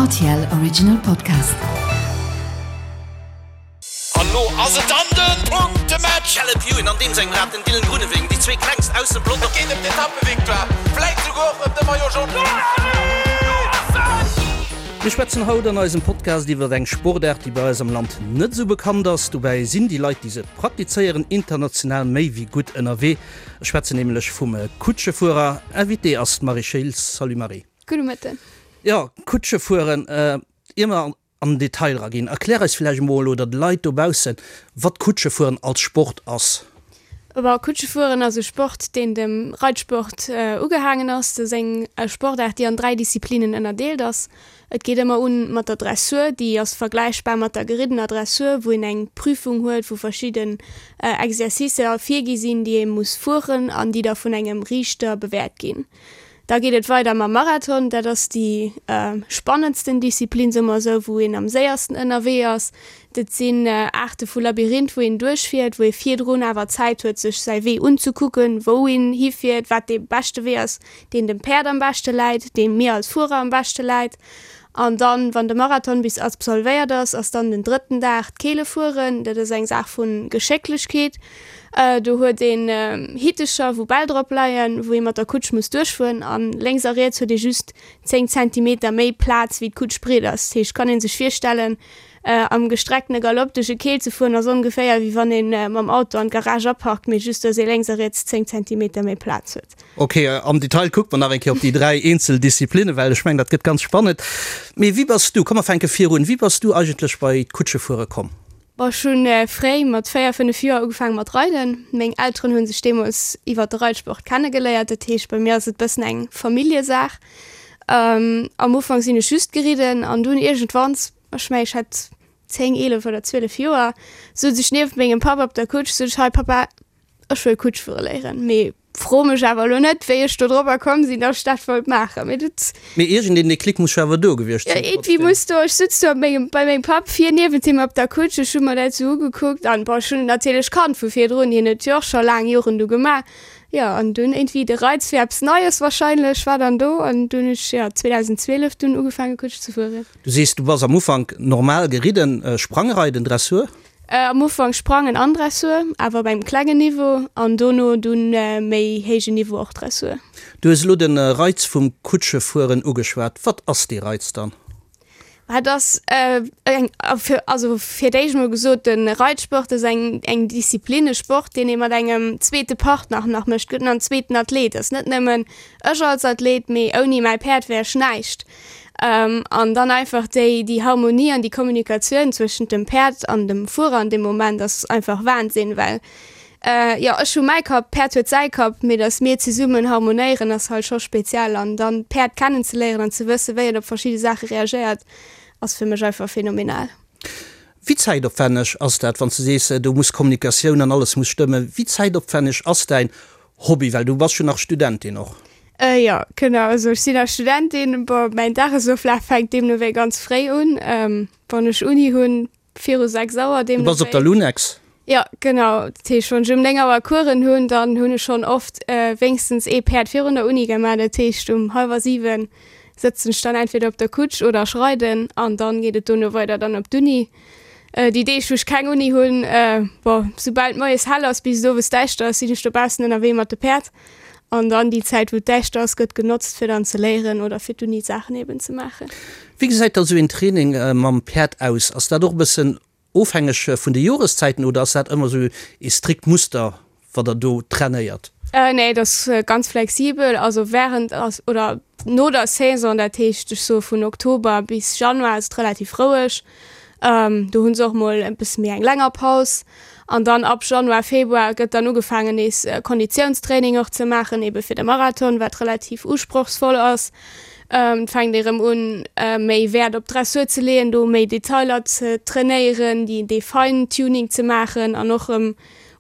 Rtl Original Podcast. An lo ass et dann den Punktematch! Caleb Ewan an deem sengem Rad, den Dylan Groenewegen, déi zwee klengst aus dem Pelotong. Et geet ëm d'Etappevictoire, vläit souguer och ëm de Maillot Jaune. Mir schwätzen haut an eisem Podcast iwwer eng Sportaart, déi bei eis am Land net esou bekannt ass. Dobäi sinn déi Leit, déi se praktizéieren, international méi wéi gutt ënnerwee. Ech schwätzen nämlech vum Kutschefuerer. Invitée ass d'Marie Schiltz. Salut Marie. Gudde Mëtten. Jo, Kutschefueren, ier mer an den Detail eraginn, erklär eis vläicht emol oder de Leit dobaussen, wat Kutschefueren als Sport ass. Bon, Kutschefueren ass e Sport, deen dem Reitsport ugehaangen ass. Dat ass eng Sportaart, déi an 3 Disziplinen ënnerdeelt ass. Et geet ëmmer un mat der Dressur, déi ass vergläichbar mat der geriddener Dressur, wou een eng Prüfung huet, wou verschidden Exercicer virgi sinn, déi ee muss fueren an déi da vun engem Riichter bewäert ginn. Da geet et weider mam Marathon, dat ass déi spannendsten Disziplin, soe mer esou, wou een am séiersten ënnerwee ass. Dat sinn Aarte vu Labyrinth, wou een duerchfiert, wou ee virdrun awer Zäit huet, sech säi Wee unzekucken, wou een hifiert, wat dee beschte Wee ass, deen dem Päerd am beschte läit, dee mir als Fuerer am beschte läit. An dann, wann de Marathon bis absolvéiert ass, ass dann den drëtten Dag d'Keelefueren. Dat ass eng Saach vu Geschécklechkeet. Do huet een Hittecher, wou Bäll drop leien, wou ee mat der Kutsch muss duerchfueren. A lénks a riets huet ee just 10 Zentimeter méi Plaz, wéi d'Kutsch breet ass. Dat heescht, kann ee sech virstellen, am gestrecktene Galopp duerch e Keel ze fueren, ass ongeféier, wéi wann ee mam Auto an d'Garage aparkt, mee just, dass ee lénks a riets 10 Zentimeter méi Plaz huet. Ok, am Detail kucke mer nach eng Kéier op déi 3 eenzel Disziplinnen, well ech mengen, dat gëtt ganz spannend. Mee wéi bass du, komm mer fänke virun, wéi bass du eigentlech bei d'Kutschefuere komm? Bon, ech hu fréi, mat 4, 5 Joer ugefaange mat reiden. Meng Elteren hu sech deemools iwwer de Reitsport kennegeléiert, dat heescht bei mir ass et bëssen eng Familljesaach. Am Ufank sinn ech just geridden an dunn iergendwanns, ech mengen ech hat 10, 11 oder 12 Joer, souz ech nieft mengem Papp op der Kutsch, sot ech, Hei Papa, Ech wëll Kutsch fuere léieren, mee fro mech awer elo net, wéi ech do drobber komm sinn, dass ech dat wollt maachen. Mee dat. Mee iergendeen Déclic muss jo awer do gewiescht sinn. Jo, iergendwéi muss do, ech sutz do op mengem, bei mengem Papp vir niewent him op der Kutsch, ech hu mer dat esou ugekuckt an, bon, ech hunn et natierlech kannt vu virdrun, hien huet jo och scho laang Joren do gemaach. Jo, an dunn iergendwéi de Reiz fir eppes Neies wahrscheinlech war dann do an dunn hunn ech, jo, 2012 dunn ugefaange Kutsch ze fueren. Du sees, du bass am Ufank normal geridden, Sprangreiden, Dressur? Am Ufank Sprangen an Dressur, awer op engem klengen Niveau, an dono dunn méi héijen Niveau och Dressur. Du hues elo de Reiz vum Kutschefueren ugeschwat. Wat ass dee Reiz dann? Et ass eng, also fir d'éischt mol gesot, de Reitsport ass eng eng Disziplin, e Sport, deen ee mat engem zweete Partner nach mécht. Et gëtt nach en zweeten Athlet. Et ass net nëmmen ech als Athlet, mee ouni mäi Päerd wär ech näischt. An dann einfach déi, déi Harmonie an déi Kommunikatioun zwëschent dem Päerd an dem Fuerer an deem Moment ass einfach Wahnsinn, well jo, ech hu mäi Kapp, d'Päerd huet säi Kapp, mee datt mir zesummen harmonéieren ass halt scho speziell. An dann d'Päerd kennenzeléieren an ze wësse wéi et op verschidde Saache reagéiert, ass fir mech einfach phänomenal. Wéi zäitopwänneg ass dat, wann s du sees, do muss Kommunikatioun an alles muss stëmmen, wéi zäitopwänneg ass däin Hobby, well du bass jo nach Studentin och. Jo, genau, also ech sinn nach Studentin. Bon, mäin Dagesoflaf fänkt deemno wéi ganz fréi un, wann ech Uni hunn, viru 6 Auer deemno wéi. Du bass op der Lunex? Jo, genau. Dat heescht, wann ech um 9 Auer Coursen hunn, dann hunn ech schonn oft wéinstens ee Päerd virun der Uni gemaach. Dat heescht, um hallwer 7 sëtzen ech dann entweder op der Kutsch oder ech reiden an dann geet et dono weider dann op d'Uni. Déi Deeg wou ech keng Uni hunn, bon, soubal et moies hell ass bis et owes däischter ass, sinn ech dobaussen ënnerwee mat de Päerd. An dann déi Zäit wou et däischter ass gëtt genotzt fir dann ze léieren oder fir d'Uni-Saachen eben ze maachen. Wéi gesäit da sou een Training mam Päerd aus? Ass dat och e bëssen ofhängeg vun de Joreszäiten oder ass dat ëmmer sou ee strikt Muster wat der do trainéiert? Nee, et ass ganz flexibel. Also während oder no der Saison, dat heescht ech soe vun Oktober bis Januar ass et relativ roueg. Do hu se och mol e bësse méi eng länger Paus. An dann ab Januar, Februar gëtt dann ugefaangen nees Konditiounstraining och ze maachen, ebe fir de Marathon, wat relativ usprochsvoll ass. Et fänkt ee rëm un méi Wäert op d'Dressur ze leeën, do méi Detailer ze trainéieren, déi dee Fine-Tuning ze maachen an och rëm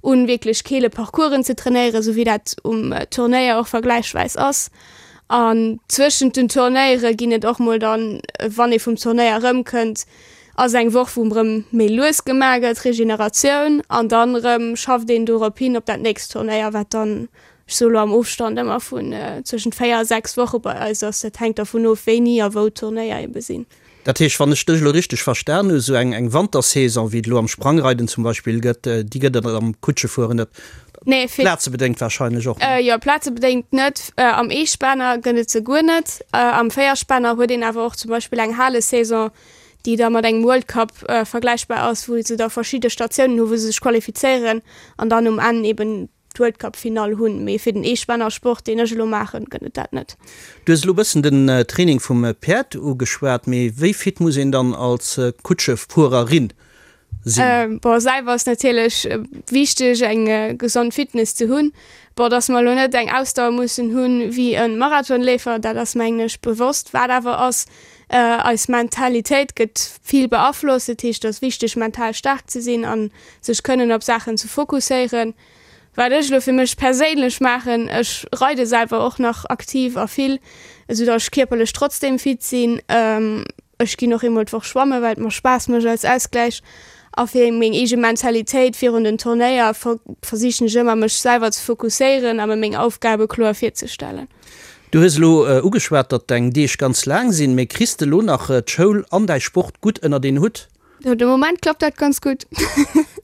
un wierklech keele Parcoursen ze trainéieren, esou wéi dat um Turnéier och vergläichsweis ass. An zwëschent den Turnéiere ginn et och mol dann, wann ee vum Turnéier erëmkënnt, ass eng Woch wou erëm méi lues gemaach gëtt, Regeneratioun, an dann erëm schafft een dorop hin op dat nächst Turnéier, wat dann. Ech soe lo am Ofstand ëmmer vun zwëschent 4 a 6 Woche bei eis ass. Dat hänkt dervun of, wéini a wou d'Turnéier ebe sinn. Dat heescht, wann ech dech elo richteg verstan hu, sou eng eng Wantersaison, wéi et elo am Sprangreiden zum Beispill gëtt, déi gëtt et am Kutschefueren net. Nee, fir. Plazebedéngt warscheinlech och net. Jo, plazebedéngt net. Am Eespänner gëtt et se guer net. Am Véierspänner huet een awer och zum Beispill eng Halesaison, déi da mat engem World Cup vergläichbar ass, wou se da verschidde Statiounen hu wou se sech qualifizéieren an dann um Enn eben d'World Cup Finall hunn, mee fir den Eespännersport deen ech elo maachen, gëtt et dat net. Du hues elo bëssen den Training vum Päerd ugeschwat, mee wéi fit muss een dann als Kutschefuererin sinn? Bon selwer ass natierlech wichteg eng gesond Fitness ze hunn. Bon dass mer elo net eng Ausdauer mussen hunn wéi e Marathonleefer, dat ass mengen ech bewosst. Wat awer ass, eis Mentalitéit gëtt vill beaflosst, dat heescht et ass wichteg mental staark ze sinn an sech kënnen op Saachen ze fokusséieren. Wat ech elo fir mech perséinlech maachen, ech reide selwer och nach aktiv a vill, esou datt ech kierperlech trotzdeem fit sinn. Ech ginn och eemol d'Woch schwammen, well et mer Spaass mécht als Ausgläich. A fir meng eege Mentalitéit virun den Turnéier versichen ech ëmmer mech selwer ze fokusséieren a mer meng Aufgabe kloer virzestellen. Du hues elo ugeschwat, datt deng Deeg ganz laang sinn, mee kriss de elo nach d'Schoul an däi Sport gutt ënnert een Hutt? De Moment klappt dat ganz gutt.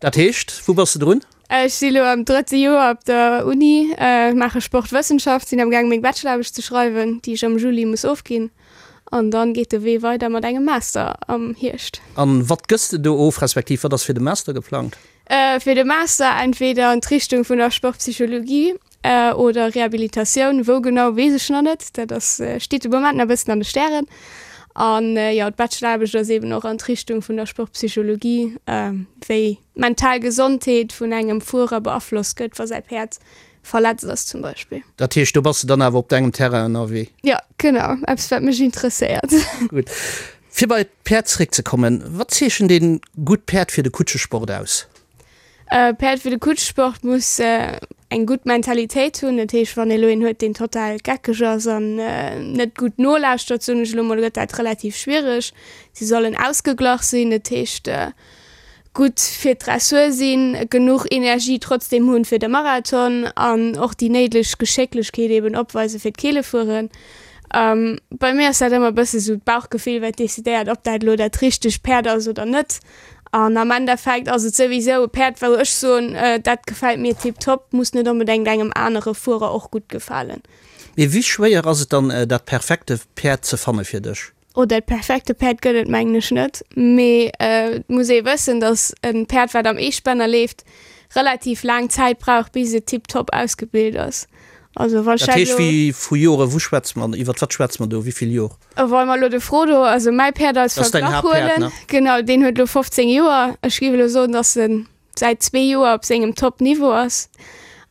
Dat heescht, wou bass de drun? Ech si lo am drëtte Joer op der Uni, maache Sportwëssenschaft, sinn am gaang meng Bacheloraarbecht ze schreiwen, déi ech am Juli muss ofginn. An dann geet de Wee weider mat engem Master am Hierscht. An wat gëss de do of, respektiv wat ass fir de Master geplangt? Fir de Master entweder an d'Richtung vun der Sportpsychologie Oder Rehabilitatioun, wou genau weess ech nach net, dat ass steet de Moment nach e bëssen an de Stären. An jo, d'Bacheloraarbecht ass eben och an d'Richtung vun der Sportpsychologie, wéi d'mental Gesondheet vun engem Fuerer beaflosst gëtt, wa säi Päerd verletzt ass zum Beispill. Dat heescht, do bass de dann awer op dengem Terrain ënnerwee? Jo, genau, eppes wat mech interesséiert. Gutt. Fir bei d'Päerd zeréckzekommen, wat zeechent ee gutt Päerd fir de Kutschesport aus? E Päerd fir de Kutschsport muss eng gutt Mentalitéit hunn. Dat heescht, wann ee lo een huet, deen total geckeg ass an net gutt nolauschtert, soen ech elo mol, gëtt dat relativ schwiereg. Si sollen ausgeglach sinn, dat heescht gutt fir d'Dressur sinn, genuch Energie trotzdeem hunn fir de Marathon an och déi néideg Geschécklechkeet eben opweise fir d'Keelefueren. Bei mir ass dat ëmmer e bësse sou d'Bauchgefill, wat decidéiert, ob dat elo dat richtegt Päerd ass oder net. An am Endeffekt ass et souwisou e Päerd, wou ech soen, dat gefält mir tiptop, muss net onbedéngt engem anere Fuerer och gutt gefalen. Mee wéi schwéier ass et dann, dat perfekte Päerd ze fanne fir dech? Oh, dat perfekte Päerd gëtt et mengen ech net. Mee et muss ee wëssen, datt e Päerd, wat am Eespänner leeft, relativ laang Zäit brauch, bis et tiptop ausgebilt ass. Also wann ech Dat heescht, wéi vu Jore, wou schwätze mer, iwwert wat schwätze mer do, wéi vill Jor? Wa mer elo de Frodo, also mäi Päerd als Verglach huelen, genau, deen huet elo 15 Joer. Ech géif elo soen, datt en säit zwee Joer op sengem Top-Niveau ass.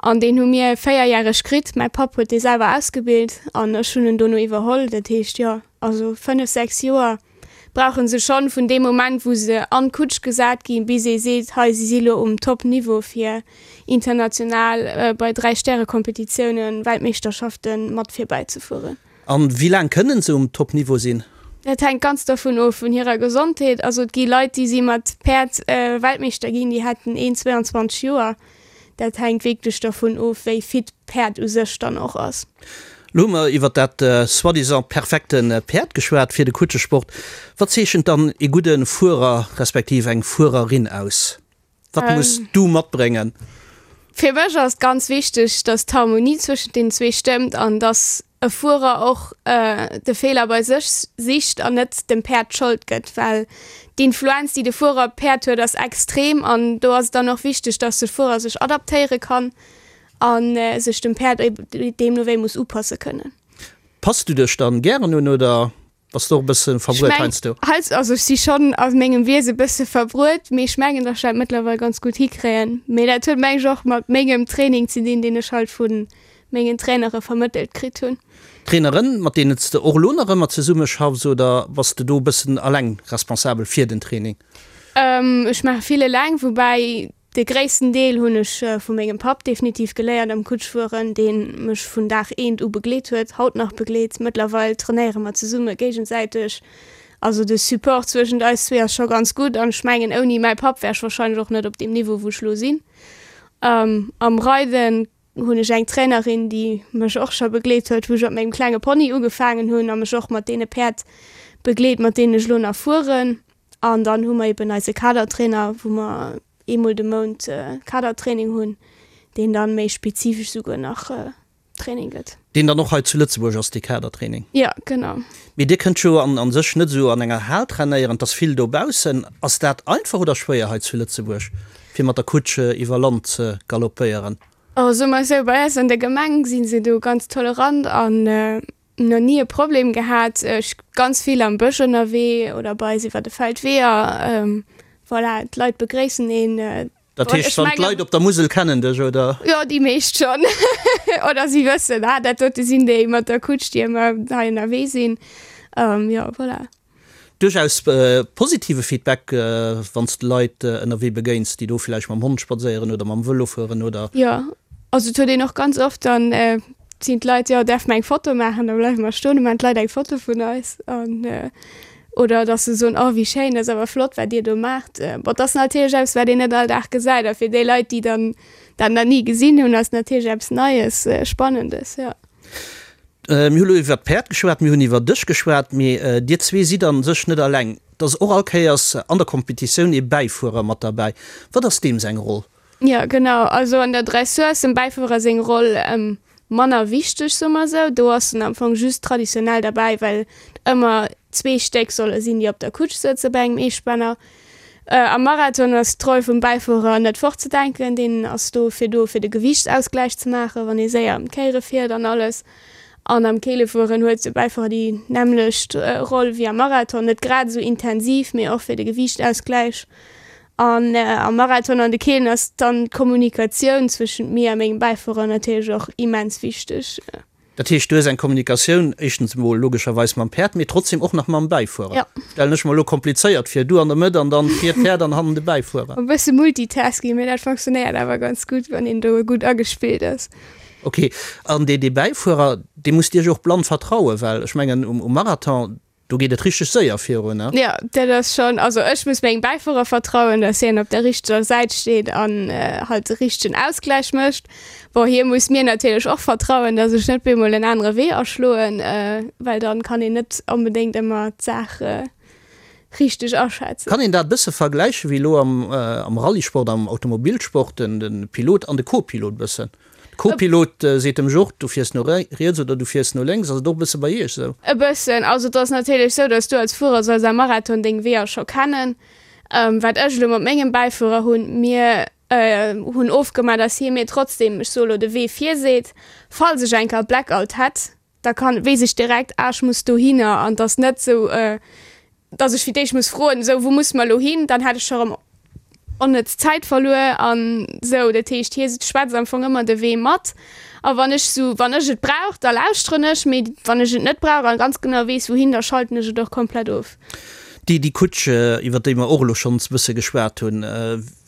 An deen hu mir véierjäreg kritt. Mäi Papp huet dee selwer ausgebilt an ech hunn en dono iwwerholl. Dat heescht, jo, also fënnef, sechs Joer brauche se schonn vun deem Moment, wou se an d'Kutsch gesat ginn, bis ee seet, hei, si si lo um Top-Niveau fir international bei Dräi-Stäre-Kompetitiounen, Weltmeeschterschaften mat virbäizefueren. An wéi laang kënnen se um Top Niveau sinn? Dat hänkt ganz dervun of, vun hirer Gesondheet. Also et gi Leit, déi si mat Päerd Weltmeeschter ginn, déi hätten een 22 Joer. Dat hänkt wierklech dervun of, wéi fit d'Päerd u sech dann och ass. Lo hu mer iwwer dat soi-disant perfekte Päerd geschwat fir de Kutschesport. Wat zeechent dann ee gudde Fuerer respektiv eng Fuererin aus? Wat muss du matbréngen? Fir mech ass et ganz wichteg, dass d'Harmonie zwëschent den zwee stëmmt an dass e Fuerer och de Feeler bei sech sicht an net dem Päerd d'Schold gëtt, well d'Influenz, déi de Fuerer op d'Päerd huet, ass extrem an do ass et dann och wichteg, dass de Fuerer sech adaptéiere kann a sech dem Päerd deemno wéi muss upasse kënnen. Pass du dech dann gären un oder Bass de och e bësse verbruet heiansdo? Also ech si schonn a mengem Wiese e bësse verbruet, mee ech mengen, datt ech dat mëttlerweil ganz gutt hikréien. Mee dat huet meng ech och mat mengem Training ze dinn, deen ech halt vu mengen Trainere vermëttelt kritt hunn. Traineren, mat deenen s de och elo nach ëmmer zesummeschaffs oder bass de do e bëssen eleng responsabel fir den Training? Ech maache vill eleng, woubäi De gréissten Deel hunn ech vu mengem Papp definitiv geléiert am Kutschfueren, deen mech vun Dag eent u begleet huet, haut nach begleet. Mëttlerweil trainéiere mer zesumme géigesäiteg. Also de Support zwëschent eis zwee ass scho ganz gutt an ech mengen ouni mäi Papp wär ech warscheinlech och net op deem Niveau wou ech lo sinn. Am Reiden. Hunn ech eng Trainerin, déi mech och scho begleet huet, wou ech op mengem klenge Pony ugefaangen hunn a mech och mat deene Päerd begleet, mat deenen ech elo nach fueren. An dann hu mer eben eise Kadertrainer, wou mer eemol de Mount Kadertraining hunn, deen dann méi spezifesch souguer nach Training gëtt. Deen dann och hei zu Lëtzebuerg ass, dee Kadertraining? Jo, genau. Mee Dir kënnt jo an an sech net esou an enger Hal trainéieren, et ass vill dobaussen. Ass dat einfach oder schwéier hei zu Lëtzebuerg, fir mat der Kutsch iwwer Land ze galoppéieren? Oh, soe mer esou, bei eis an der Gemeng si se do ganz tolerant an nach ni e Problem gehat. Ech ganz vill am Bësch ënnerwee oder bei eis iwwer de Feldweeër. Voilà, d'Leit begréissen een. Dat heescht, wann d'Leit op der Musel kennen dech, oder? Jo, déi meescht schonn. Oder si wëssen, ah, dat dote sinn déi mat der Kutsch, déi ëmmer hei ënnerwee sinn. Jo, voilà. Duerchaus positive Feedback, wann s de Leit ënnerwee begéins, déi do villäicht mam Hond spadséieren oder mam Vëlo fueren, oder? Jo, also et huet een och ganz oft dann sinn d'Leit, jo, däerf mer eng Foto maachen? Da bleiwe mer stoen, da maachen d'Leit eng Foto vun eis an oder dass se soen, oh wéi schéin, dat ass awer flott wat dir do maacht. Bon, dat ass natierlech eppes wat een net all Dag gesäit a fir déi Leit, déi dann dat nach ni gesinn hunn, ass natierlech eppes Neies, Spannendes, jo. Mir hu lo iwwer d'Päerd geschwat, mir hunn iwwer dech geschwat, mee dir zwee sidd a sech net alleng. Et ass och all Kéiers an der Kompetitioun ee Bäifuerer mat derbäi. Wat ass deem seng Roll? Jo, genau. Also an der Dressur ass dem Bäifuerer seng Roll manner wichteg, soe mer esou. Do ass en am Fong just traditionell derbäi, well et ëmmer zwee Stéck solle sinn, déi op der Kutsch sëtze bei engem Eespänner. Am Marathon ass d'Roll vum Bäifuerer net fortzedenken. Deen ass do fir do, fir de Gewiichtsausgläich ze maachen, wann ee séier ëm d'Kéiere fiert an alles. An am Keelefueren huet de Bäifuerer déi nämmlecht Roll wéi am Marathon, net grad esou intensiv, mee och fir de Gewiichtsausgläich. An am Marathon an de Keelen ass dann d'Kommunikatioun zwëschent mir a mengem Bäifuerer natierlech och immens wichteg. Dat heescht, du hues eng Kommunikatioun éischtens emol logescherweis mam Päerd, mee trotzdem och nach mam Bäifuerer. Jo. Stellen ech mer elo komplizéiert vir, du an der Mëtt an dann vir d'Päerd an hannen de Bäifuerer. E bësse Multitasking, mee dat fonctionnéiert awer ganz gutt, wann een do gutt agespillt ass. Ok, an dee Bäifuerer, dee musst Iech och blann vertrauen, well ech mengen um Marathon, Do geet et richteg séier virun, ne? Jo, dat ass schonn, also ech muss mengem Bäifuerer vertrauen, dass hien op der richteger Säit steet an halt de richtegen Ausgläich mécht. Bon, hie muss mir natierlech och vertrauen, dass ech net bemol en anere Wee aschloen, well dann kann een net onbedéngt ëmmer d'Saach richteg aschätzen. Kann een dat e bësse vergläichen wéi elo am Rallyesport, am Automobilsport, den Pilot an de Co-Pilot bëssen? De Co-Pilot seet dem Jort, du fiers no riets oder du fiers no lénks. Ass et och e bësse bei iech esou? E bëssen. Also et ass natierlech esou, datt s du als Fuerer solls am Marathon deng Weeër scho kennen. Wat ech elo mat mengem Bäifuerer hunn, mir hunn ofgemaach, datt hie mir trotzdem, ech soe lo, de Wee virseet, falls ech eng Kéier Blackout hätt, da kann, weess ech direkt, ah ech muss dohinner an et ass net esou, dass ech fir d'éischt muss froen, esou wou musse mer elo hin, dann hätt ech scho erëm onnëtz Zäit verluer an esou. Dat heescht, hie schwätzt am Fong ëmmer de Wee mat a wann ech esou, wann ech et brauch, da lauschteren ech, mee wann ech et net brauch a ganz genau weess wouhin, da schalten ech et och komplett of. Déi, déi Kutsch, iwwer déi mer och elo schonns e bësse geschwat hunn,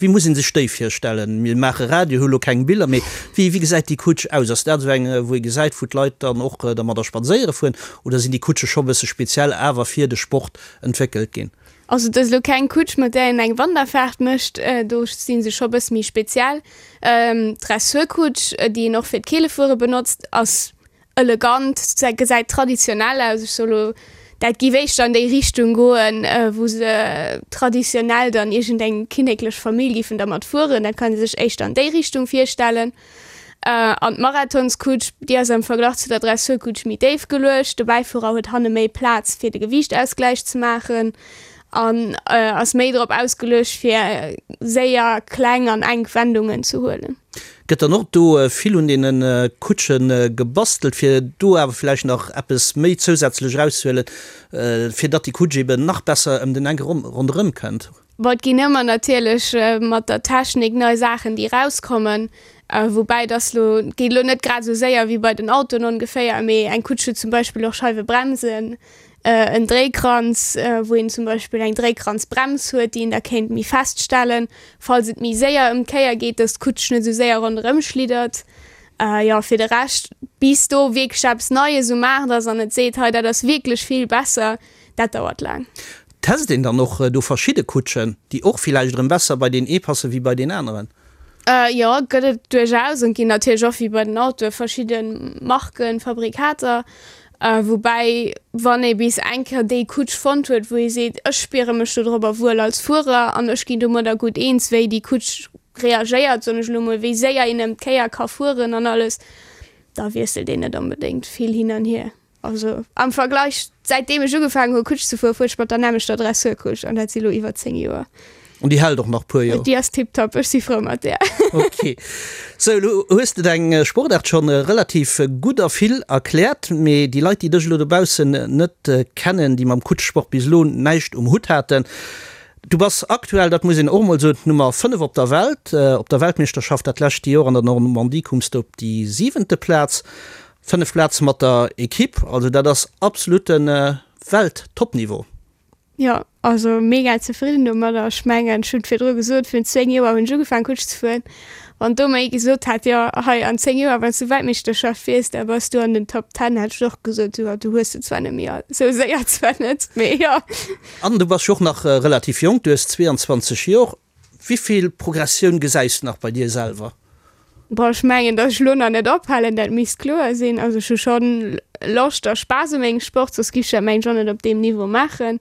wéi muss ee sech déi virstellen? Mir maache Radio, hu elo keng Biller, mee wéi, wéi gesäit déi Kutsch aus? Ass dat esou eng, wou ee gesäit, wou d'Leit dann och dermadder spadséiere fueren, oder sinn déi Kutsche scho e bësse speziell awer fir de Sport entwéckelt ginn? Also et ass elo keng Kutsch, mat där een eng Wanderfaart mécht, do si se scho e bësse méi speziell. D'Dressurkutsch, déi een och fir d'Keelefuere benotzt, ass Elegant, gesäit traditionell aus. Ech soe lo, dat giff éischter an déi Richtung goen, wou se traditionell dann iergendeng kinneklech Famill giffen dermat fueren. Dat kann ee sech éischter an déi Richtung virstellen. An d'Marathonskutsch, déi ass am Verglach zu der Dressurkutsch méi déif geluecht. De Bäifuerer huet hanne méi Plaz, fir de Gewiichtausgläich ze maachen an ass méi drop ausgeluecht, fir séier kleng an enk Wendungen ze huelen. Gëtt dann och do vill un deene Kutsche gebastelt, fir do awer vläicht nach eppes méi zousätzlech erauszehuelen, fir datt déi Kutsch eben nach besser ëm den Enk ronderëm kënnt? Bon, et ginn ëmmer natierlech mat der Technik nei Saachen, déi erauskommen, woubäi dass lo, et geet elo net grad esou séier wéi bei den Autoen ongeféier, mee eng Kutsch huet zum Beispill och Scheiwebremsen, en Dréikranz, wou een zum Beispill eng Dréikranzbrems huet, déi een da kéint méi fest stellen, falls et méi séier ëm d'Kéier geet, dass d'Kutsch net esou séier ronderëm schliddert. Jo, fir de Rescht, bis do wierklech eppes Neies um Maart ass an et seet, hei dat ass wierklech vill besser, dat dauert laang. Test een dann och do verschidde Kutschen, déi och villäicht erëm besser bei deen ee passe wéi bei deen aneren? Jo, gëtt et duerchaus an et ginn natierlech och wéi bei den Autoe verschidde Marken, Fabrikater. Woubäi wann ee bis eng Kéier déi Kutsch fonnt huet, wou ee seet, ech spiere mech dodropper wuel als Fuerer an ech ginn domadder gutt eens, wéi déi Kutsch reagéiert, soen ech elo mol, wéi séier een ëm d'Kéier ka fueren an alles, da wiesselt een net onbedéngt vill hin an hier. Also am Vergleich, säitdeem ech ugefaangen hu Kutsch ze fueren, fuer ech mat der nämmlechter Dressurkutsch an dat si lo iwwer 10 Joer. An déi hält och nach puer Joer? Déi ass tiptop, ech si frou mat där. Ok. Sou, elo hues de deng Sportaart schonn relativ gutt a vill erkläert, mee déi Leit, déi dech elo dobaussen net kennen, déi mam Kutschsport bis elo näischt um Hutt haten, du bass aktuell, dat muss een och emol soen, d'Nummer 5 op der Welt. Op der Weltmeeschterschaft dat lescht Joer an der Normandie koums de op déi siwente Plaz. 5 Plaze mat der Equipe, also dat ass absolute Welt-Topniveau. Jo, also mega zefridden domadder. Ech mengen, ech hunn et virdru gesot, virun 10 Joer hunn ech ugefaangen Kutsch ze fueren. Wann do mer ee gesot hätt, jo hei an 10 Joer wann s du Weltmeeschterschaft fiers, da bass du an den Top Ten, hätt ech och gesot, jo du hues se zwar net méi all, esou séier zwar net, mee jo. An du bass jo och nach relativ jonk, du hues 22 Jor. Wéi vill Progressioun gesäis du nach bei dir selwer? Bon, ech mengen, datt ech elo nach net ophalen, dat misst kloer sinn. Also ech hu schonn Loscht a Spaass u mengem Sport, soss giff ech dat mengen ech och net op deem Niveau maachen.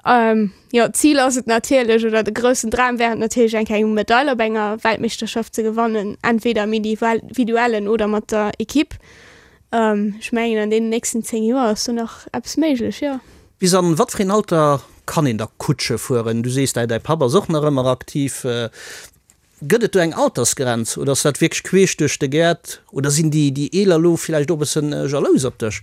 Jo, d'Zil ass et natierlech, oder de groussen Dram wär et natierlech eng Kéier eng Medail op enger Weltmeeschterschaft ze gewannen, entweder am Individuellen oder mat der Equipe. Ech mengen an deenen nächsten 10 Joer ass do nach eppes méiglech, jo. Bis an wat fir een Alter kann een da Kutsche fueren? Du sees däi Papp ass och nach ëmmer aktiv. Gëtt et do eng Altersgrenz oder ass dat wierklech queesch duerch de Gäert oder sinn déi déi Eeler elo villäicht och e bëssen jalous op dech?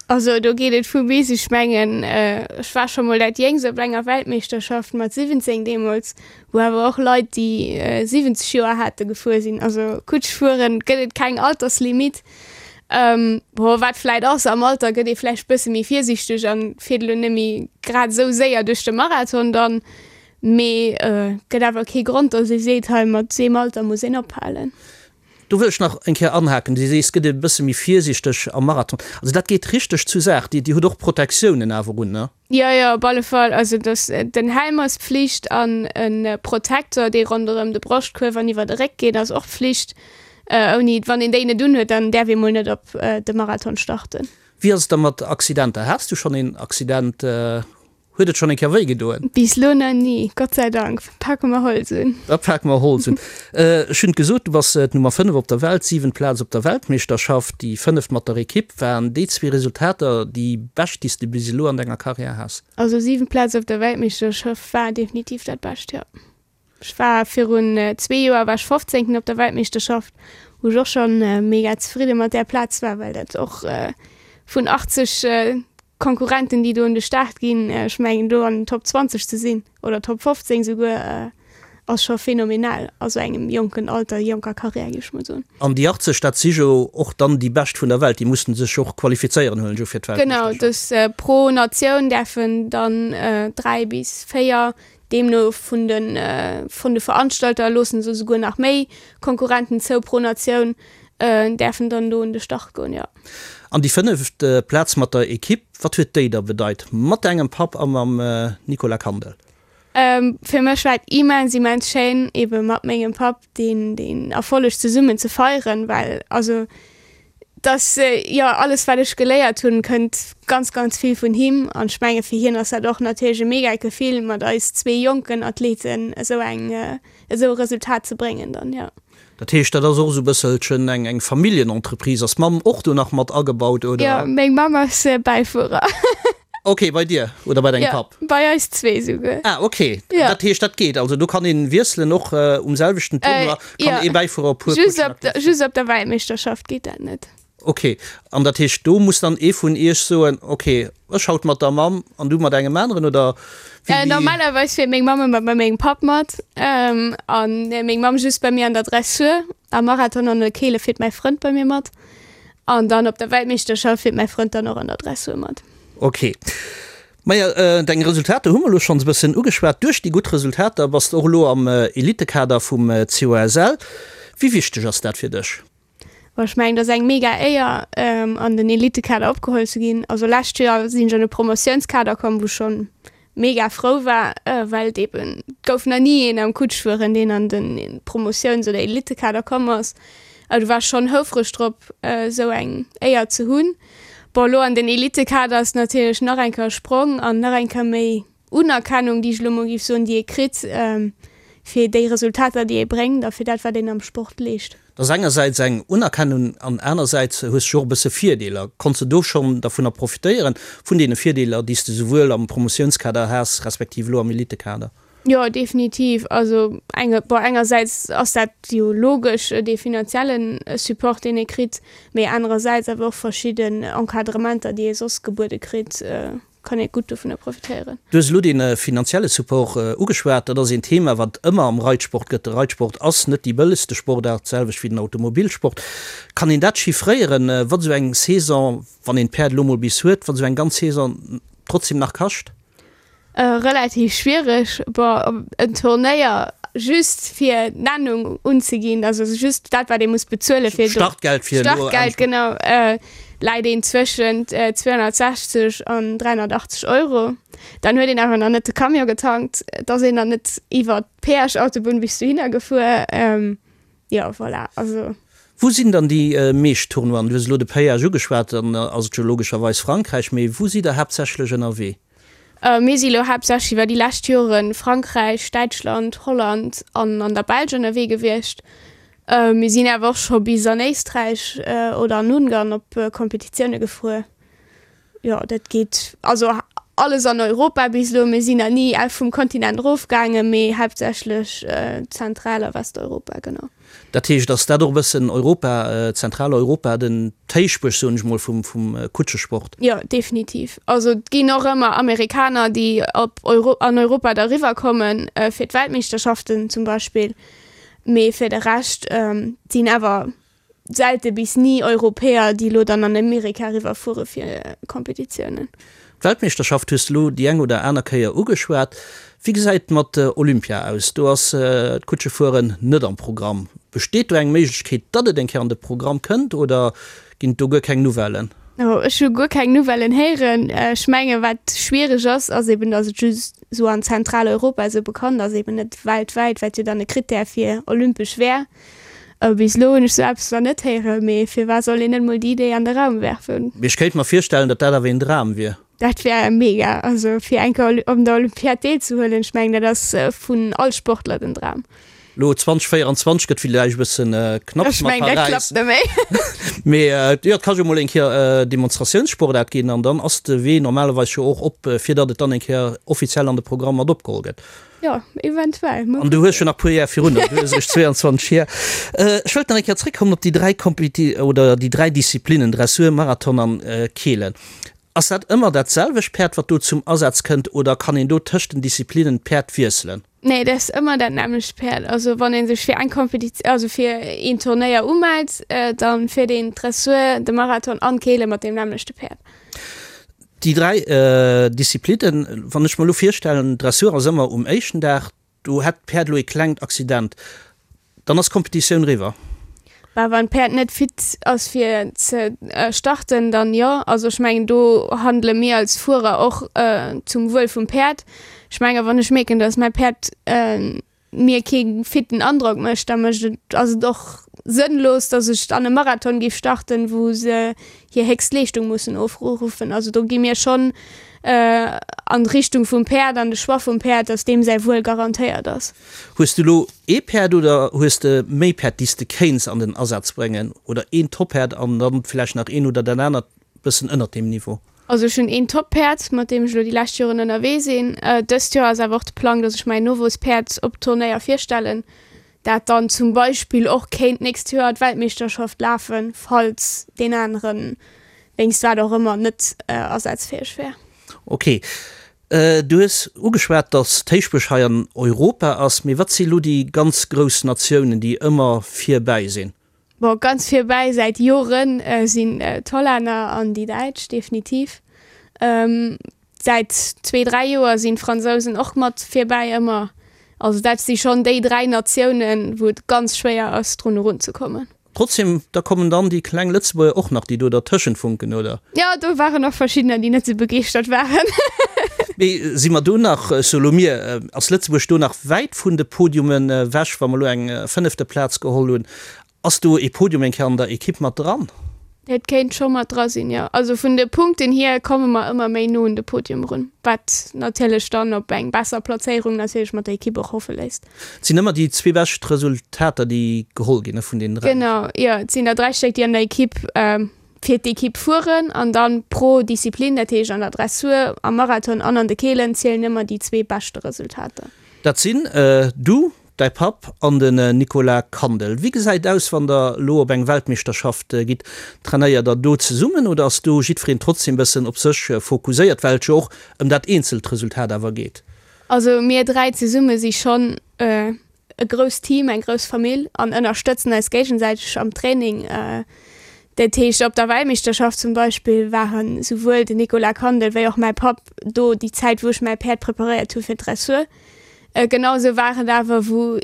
Also do geet et vu bis. Ech mengen ech war scho mol dat Jéngst op enger Weltmeeschterschaft mat 17 deemools, wou awer och Leit déi 70 Joer hate gefuer sinn. Also Kutsch fueren gëtt et keng Alterslimit. Bon, wat vläit ass, am Alter gëtt ee vläicht bësse méi virsiichteg an fiert elo net méi grad esou séier duerch de Marathon dann, mee gëtt awer kee Grond, datt ee seet, hei mat deem Alter muss een ophalen. Do wëll ech nach eng Kéier anhaken. Du sees, gëtt ee bësse méi virsiichteg am Marathon. Also dat geet richteg zu Saach. Dir hutt och Protektiounen awer un, ne? Jo, jo, op alle Fall. Also dass den Helm ass Pflicht an e Protektor, dee ronderëm de Broschtkuerf an iwwer de Réck geet, ass och Pflicht. Ouni, wann een déi net unhuet, dann däerf ee mol net op de Marathon starten. Wéi ass et da mat Accidenter? Has du schonn een Accident? Huet et schonn eng Kéier wéi gedoen? Bis lo nach ni, Gott sei Dank. Pake mer Holz un. Da pake mer Holz un. Ech hunn et gesot, du bass d'Nummer 5 op der Welt, siwent Plaz op der Weltmeeschterschaft, déi fënneft mat der Ekipp. Waren déi zwee Resultater déi bescht, déi s de bis elo an denger Karriär has? Also siwent Plaz op der Weltmeeschterschaft war definitiv dat Bescht, jo. Ech war virun zwee Joer war ech fofzéngten op der Weltmeeschterschaft, wou ech och schonn mega zefridde mat där Plaz war, well dat och vun 80 Konkurrenten, déi do un de Start ginn, ech mengen do an den Top 20 ze sinn oder Top 15 souguer, ass scho phänomenal a sou engem jonken Alter, jonker Karriär, géif ech mol soen. An déi 80, dat si jo och dann déi Bescht vun der Welt, déi mussen sech och qualifizéieren, huelen ech u fir d'Weltmeeschterschaft. Genau, dës pro Natioun däerfen dann 3 bis 4, deemno vun de vun de Veranstalter loosse se esouguer nach méi Konkurrenten zou pro Natioun, däerfen dann do un de Start goen, jo. An déi fënneft Plaz mat der Ekipp, wat huet déi da bedeit mat dengem Papp a mam Nicolas Kandel? Fir mech war et immens, immens schéin, ebe mat mengem Papp deen, deen Erfolleg zesummen ze feieren, well also dass, jo, alles wat ech geléiert hunn, kënnt ganz, ganz vill vun him an ech menge fir hien ass dat och natierlech e mega Gefill, mat eis zwee jonken Athleten esou eng, esou e Resultat ze bréngen dann, jo. Dat heescht, dat ass och esou e bësselchen eng eng Familljenentreprise. Ass d'Mamm och do nach mat agebaut, oder? Jo, meng Mamm ass Bäifuerer. Ok, bei dir oder bei dengem Papp? Jo, bei eis zwee esouguer. Ah, ok. Jo. Dat heescht, dat geet. Also do kann een wiesselen, och um selwechten Tournoi kann ee Bäifuerer e puer Just op der, just op der Weltmeeschterschaft geet dat net. Ok, an dat heescht, do muss dann ee vun iech soen, ok, ech haut mat der Mamm an du mat engem aneren, oder wéi? Normalerweis fiert meng Mamm ëmmer bei mengem Papp mat an meng Mamm just bei mir an der Dressur. Am Marathon an der Keele fiert mäi Frënd bei mir mat an dann op der Weltmeeschterschaft fiert mäi Frënd dann och an der Dressur mat. Ok. Maja, deng Resultater hu mer elo schonns e bëssen ugeschwat. Duerch déi gutt Resultater bass de och elo am Elitekader vum COSL. Wéi wichteg ass dat fir dech? Bon, ech mengen, et ass eng mega Éier, an den Elitekader opgeholl ze ginn. Also lescht Joer sinn ech an de Promotiounskader komm, wou schonn mega frou war, well et eben, et gouf nach ni een am Kutschfueren, deen an de Promotiouns oder Elitekader komm ass. Du war schonn houfreg drop, esou eng Éier ze hunn. Bon, elo an den Elitekader ass natierlech nach eng Kéier e Sprong an nach eng Kéier méi Unerkennung, déi ech elo mol géif soen, déi ee kritt fir déi Resultater, déi ee bréngt a fir dat, wat een am Sport leescht. Dat ass engersäits eng Unerkennung an anersäits hues de jo och e bësse Virdeeler. Konns de do schonn dervunner profitéieren, vun deene Virdeeler, déi s de souwuel am Promotiounskader has, respektiv elo am Elitekader? Jo, definitiv. Also enge, bon, engersäits ass dat jo logesch, dee finanzielle Support, deen ee kritt, mee anerersäits awer och verschidden Encadrementer, déi ee soss gebuede kritt. Kann ee gutt dovunner profitéieren. Du hues elo dee finanzielle Support ugeschwat. Dat ass een Thema, wat ëmmer am Reitsport gëtt. De Reitsport ass net déi bëllegste Sportaart, d'selwecht wéi den Automobilsport. Kann een dat chiffréieren, wat esou eng Saison, wann een d'Päerd elo mol bis huet, wat esou eng ganz Saison trotzdem nach kascht? Relativ schwiereg. Bon, en Turnéier just fir d'Nennung unzeginn, also just dat wat ee muss bezuele fir do, Startgeld fir elo Startgeld, genau, läit een zwëschent 260 an 380 Euro. Dann huet een awer nach net de Camion getankt, et ass een nach net iwwer d'Péage-Autobunn bis dohinner gefuer. Jo, voilà, also. Wou sinn dann déi meescht Tournoien? Du hues elo de Péage ugeschwat, dann ass et jo logescherweis Frankräich, mee wou sidd der haaptsächlech ënnerwee? Mir si lo haaptsächlech iwwer déi lescht Joren Frankräich, Däitschland, Holland an an der Belsch ënnerwee gewiescht. Mir sinn awer och scho bis an Éisträich oder an Ungarn op Kompetitioune gefuer. Jo, dat geet also alles an Europa bis elo. Mir sinn nach ni vum Kontinent erofgaangen, mee haaptsächlech Zentral a Westeuropa, genau. Dat heescht, ass dat och e bëssen Europa, Zentraleuropa, den d'Héichbuerg, soen ech mol, vum vum Kutschesport? Jo, definitiv. Also et ginn och ëmmer Amerikaner, déi op Euro an Europa da riwwer kommen, fir d'Weltmeeschterschaften zum Beispill. Mee fir de Rescht sinn awer selte bis ni Europäer, déi elo dann an Amerika eriwwer fuere fir Kompetitiounen. D'Weltmeeschterschaft hues de elo déi eng oder aner Kéier ugeschwat. Wéi gesäit et mat Olympia aus? Do ass d'Kutschefueren net am Programm. Besteet do eng Méiglechkeet, datt et eng Kéier an de Programm kënnt oder ginn et do guer keng Nouvellen? Ech hu guer keng Nouvellen héieren. Ech menge wat schwiereg ass, ass eben, datt et just esou an Zentraleuropa esou bekannt ass, eben net weltwäit, wat jo dann e Krittär fir olympesch wär. Bis elo hunn ech sou eppes nach net héieren, mee firwat soll een net mol déi Idee an de Raum werfen? Mee ech kéint mer virstellen, datt dat awer een Dram wier. Dat wär mega, also fir eng Kéier op der Olympiad deelzehuelen, ech mengen dat ass vun all Sportler den Dram. Elo 2024 gëtt villäicht e bëssen knapps mat Paräis. Ech mengen dat klappt net méi. Mee jo, et ka jo mol eng Kéier Demonstratiounssportaart ginn an dann ass de Wee normalerweis jo och op, fir datt et dann eng Kéier offiziell an de Programm mat opgeholl gëtt. Jo, eventuell. An du hues jo nach puer Jar virun der, du hues eréischt 22 Jar. Ech wëllt nach eng Kéier zréckkommen op déi 3 Kompeti oder déi 3 Disziplinnen, Dressur, Marathon an Keelen. Ass dat ëmmer dat selwecht Päerd, wat do zum Asaz kënnt oder kann een do tëscht den Disziplinnen d'Päerd wiesselen? Nee, dat ass ëmmer dat nämmlecht Päerd. Also wann ee sech fir eng Kompeti also fir een Turnéier umellt, da fiert een d'Dressur, de Marathon an d'Keele mat deem nämmlechte Päerd. Déi 3 Disziplinnen, wann ech mer elo virstellen, Dressur ass ëmmer um éischten Dag, do hätt d'Päerd elo ee klengt Accident, dann ass d'Kompetitioun eriwwer. Bah, wann d'Päerd net fit ass fir ze starten, dann jo. Also ech mengen do handele mir als Fuerer och zum Wuel vum Päerd. Ech menge wann ech mierken, datt mäi Päerd mir kee fitten Androck mécht, da mécht et, ass et och sënnlos, datt ech an e Marathon géif starten, wou se hir héchst Leeschtung mussen ofruffen. Also do gi mir schonn an d'Richtung vum Päerd an de Choix vum Päerd, datt deem säi Wuel garantéiert ass. Hues du elo ee Päerd oder hues de méi Päerd, déi s de kéints an den Asaz bréngen? Oder een Top-Päerd an dann vläicht nach een oder dat anert bëssen ënnert deem Niveau? Also ech hunn een Top-Päerd, mat deem ech elo déi lescht Joren ënnerwee sinn. Dëst Joer ass awer och de Plang, dass ech mäin Nowuesspäerd op Turnéier virstellen, dat dann zum Beispill och kéint d'nächst Joer d'Weltmeeschterschaft lafen, falls deen anere wéinst wat och ëmmer net asazfäeg wär. Ok. Du hues ugeschwat, dass d'Héichbuerg hei an Europa ass. Mee wat si elo déi ganz grouss Natiounen, déi ëmmer virbäi sinn? Bon, ganz virbäi säit Joren sinn d'Hollänner an déi Däitsch, definitiv. Säit zwee, dräi Joer sinn d'Fransousen och mat virbäi ëmmer. Also dat si schonn déi dräi Natiounen, wou et ganz schwéier ass, drun erunzekommen. Trotzdem, da kommen dann déi kleng Lëtzebuerger och nach, déi do dertëschent funken, oder? Jo, do waren och verschiddener, déi net sou begeeschtert waren. Mee si mer do nach, solo mir, ass Lëtzebuerg do nach wäit vun de Podiumen ewech, wa mer elo eng fënnefte Plaz geholl hunn? Ass do ee Podium eng Kéier an der Ekipp mat dran? Dat kéint scho mat dra sinn, jo. Also vun de Punkten hier komme mer ëmmer méi no un de Podium erun, wat natierlech dann op eng besser Plazéierung natierlech mat der Ekipp och hoffe léisst. Et sinn ëmmer déi zwee bescht Resultater, déi geholl ginn, ne, vun deenen dräi? Genau, jo. Et sinn der dräi Stéck, déi an der Ekipp fir d'Ekipp fueren an dann pro Disziplin, dat heescht an der Dressur, am Marathon an an de Keelen, zielen ëmmer déi zwee beschte Resultater. Dat sinn du, däi Papp an den Nicolas Kandel. Wéi gesäit et aus, wann der elo op eng Weltmeeschterschaft gitt? Trainéiert der do zesummen oder ass do jiddwereen trotzdem bëssen op sech fokuséiert, well et jo och ëm dat eenzelt Resultat awer geet? Also mir 3 zesumme si schonn e grousst Team, eng grouss Famill an ënnerstëtzen eis géigesäiteg am Training. Dat heescht op der Weltmeeschterschaft zum Beispill waren souwuel den Nicolas Kandel wéi och mäi Papp do déi Zäit wou ech mäi Päerd preparéiert hu fir d'Dressur. Genau esou war et awer wou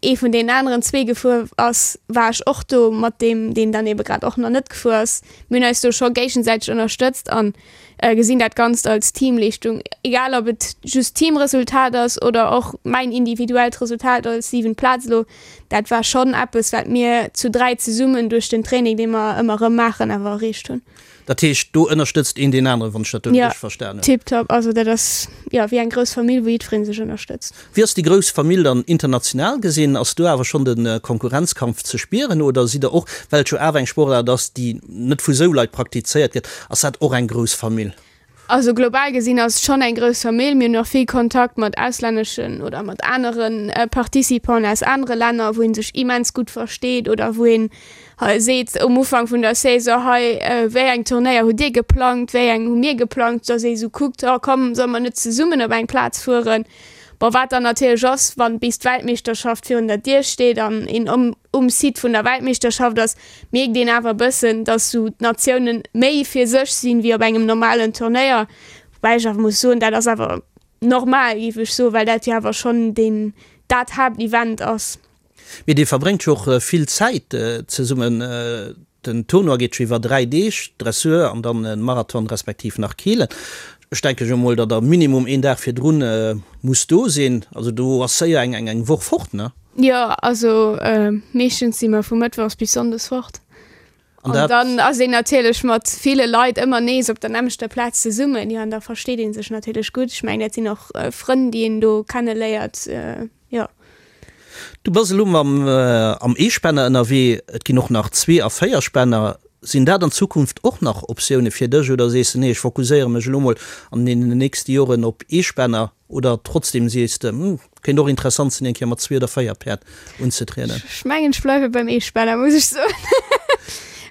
ee vun deenen aneren zwee gefuer ass, war ech och do mat deem deen dann ebe grad och nach net gefuer ass. Mir hunn eis do scho géigesäiteg ënnerstëtzt an gesinn dat Ganzt als Teamleeschtung, egal ob et just Teamresultat ass oder och mäin individuellt Resultat als siwent Plaz elo. Dat war schonn eppes, wat mir zu 3 zesummen duerch den Training, dee mer ëmmer erëm maachen, awer erreecht hunn. Dat heescht, do ënnerstëtzt een deen aneren, wann ech dat do richteg verstan hunn? Jo, tiptop. Also dat ass jo wéi eng grouss Famill, wou jiddweree sech ënnerstëtzt. Wéi ass déi grouss Famill dann international gesinn? Ass do awer schonn de Konkurrenzkampf ze spieren oder sidd der och, well et jo awer eng Sportaart ass, déi net vu sou Leit praktizéiert gëtt, ass dat och eng grouss Famill? Also global gesinn ass et schonn eng grouss Famill. Mir hunn och vill Kontakt mat auslänneschen oder mat anere Participanten aus anere Länner, wou ee sech immens gutt versteet oder wou een seet um Ufank vun der Saison, hei wéi eng Turnéier hutt Dir geplangt, wéi eng hu mir geplangt, dass ee sou kuckt, oh komm solle mer net zesummen op eng Plaz fueren. Bon, wat dann natierlech ass, wann bis d'Weltmeeschterschaft virun der Dier steet an een um Site vun der Weltmeeschterschaft ass, mierkt een awer e bëssen, dass sou d'Natiounen méi fir sech sinn, wéi op engem normalen Turnéier. Woubäi ech awer muss soen, dat ass awer normal, géif ech soen, well dat jo awer schonn deen, dat Haaptevent ass. Mee Dir verbréngt jo och vill Zäit zesummen. Den Tournoi geet jo iwwer 3 Deeg, Dressur an dann e Marathon respektiv nach Keelen. Ech denke jo mol, datt der minimum een Dag virdrun musst do sinn. Also do ass séier eng eng Woch fort, ne? Jo, also meeschtens si mer vu mëttwochs bis sonndes fort. An dann ass een natierlech mat ville Leit ëmmer nees op der nämmlechter Plaz zesummen. Jo, an da versteet ee sech natierlech gutt. Ech mengen, dat sinn och Frënn, déi een do kenneléiert. Jo. Du bass elo mam am Eespänner ënnerwee, et ginn och nach Zwee a Véierspänner. Sinn dat an Zukunft och nach Optioune fir dech oder sees de nee, ech fokuséiere mech elo mol an deenen nächste Joren op Eespänner oder trotzdem sees de hm, kéint och interessant sinn eng Kéier mat zwee oder véier Päerd unzetrieden? Ech mengen ech bleiwe beim Eespänner, muss ech soen.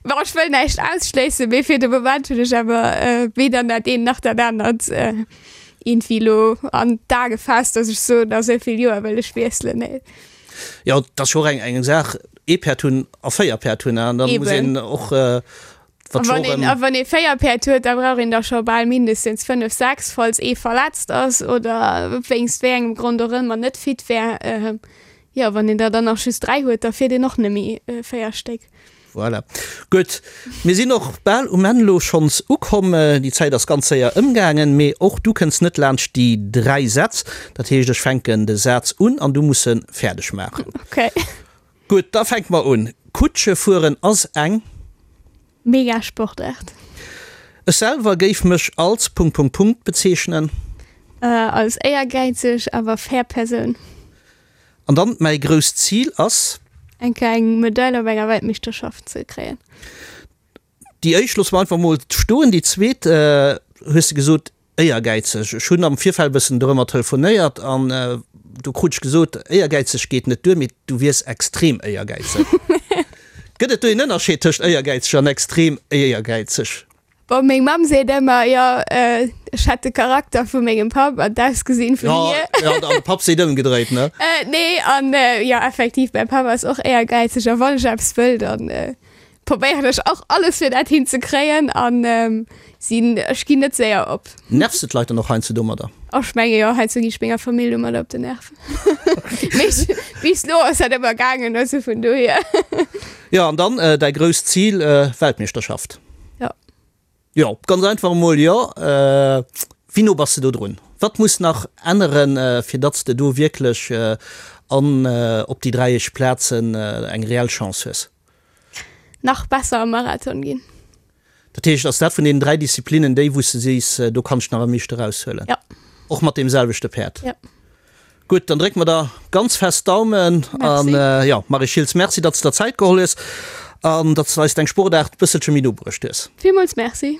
Bon, ech wëll näischt ausschléissen, mee fir de Moment hunn ech awer weder dat eent nach dat anert. Iergendwéi elo an d'A gefaasst, dass ech soen, a sou vill Joer wëll ech wiesselen. Nee. Jo, et ass jo och eng eng Saach, ee Päerd hunn a 4 Päerd hunn, an da muss een och, wat scho och. A wann ee 4 Päerd huet, da brauch een der scho bal mindestens 5, 6, falls ee verletzt ass oder wéinst wéi engem Grond och ëmmer net fit wär. Jo, wann een der dann nach just 3 huet, da fiert een och net méi 4 Stéck. Voilà. Gutt, mir sinn och bal um Enn elo schonns ukomm. Déi Zäit ass ganz séier ëmgaangen, mee och du kënns net laanscht déi 3 Sätz. Dat heescht, ech fänken de Saz un an du muss en fäerdeg maachen. Okay. Gutt, da fänke mer un. Kutsche fueren ass eng. Mega Sportaart. Ech selwer géif mech als Punkt Punkt Punkt bezeechnen. Als éiergäizeg awer fair Persoun. An dann mäi grousst Zil ass. Eng Kéier eng Medail op enger Weltmeeschterschaft ze kréien. Déi éischt loosse mer einfach mol stoen. Déi zweet hues de gesot, éiergäizeg. Ech hunn am Virfeld e bëssen dorëmmer telefonéiert an do krut ech gesot, éiergäizeg geet net duer, mee du wiers extrem éiergäizeg. Gëtt et do een Ënnerscheed tëscht éiergäizeg an extrem éiergäizeg? Bon, meng Mamm seet ëmmer, jo, ech hätt de Charakter vu mengem Papp an d'Ausgesinn vun hir. Jo, an de Papp seet ëmgedréit, ne? Nee, an jo, effektiv, mäi Papp ass och éiergäizeg a wann ech eppes wëll, dann probéieren ech och alles fir dat hinzekréien an sinn, ech ginn net séier op. Nervs de d'Leit dann och heiansdo domadder? Ech menge jo, heiansdo ginn ech menger Famill domadder op den Nerv. Mee bis elo ass dat ëmmer gaangen, also vun dohier. Jo, an dann däi grousst Zil, Weltmeeschterschaft. Jo. Jo, ganz einfach emol jo. Wéi no bass de do drun? Wat muss nach änneren, fir datt s de do wierklech an op déi 3 éischt Plazen eng reell Chance hues? Nach besser am Marathon ginn. Dat heescht, ass dat vun deenen 3 Disziplinnen déi, wou s de sees, do kann ech nach am meeschte eraushuelen? Jo. Och mat deem selwechte Päerd? Jo. Gutt, dann drécke mer der ganz fest d'Daumen. Merci. An jo, Marie Schiltz, Merci, datt s de der Zäit geholl hues an datt s de eis deng Sportaart e bësselche méi no bruecht hues. Villmools Merci.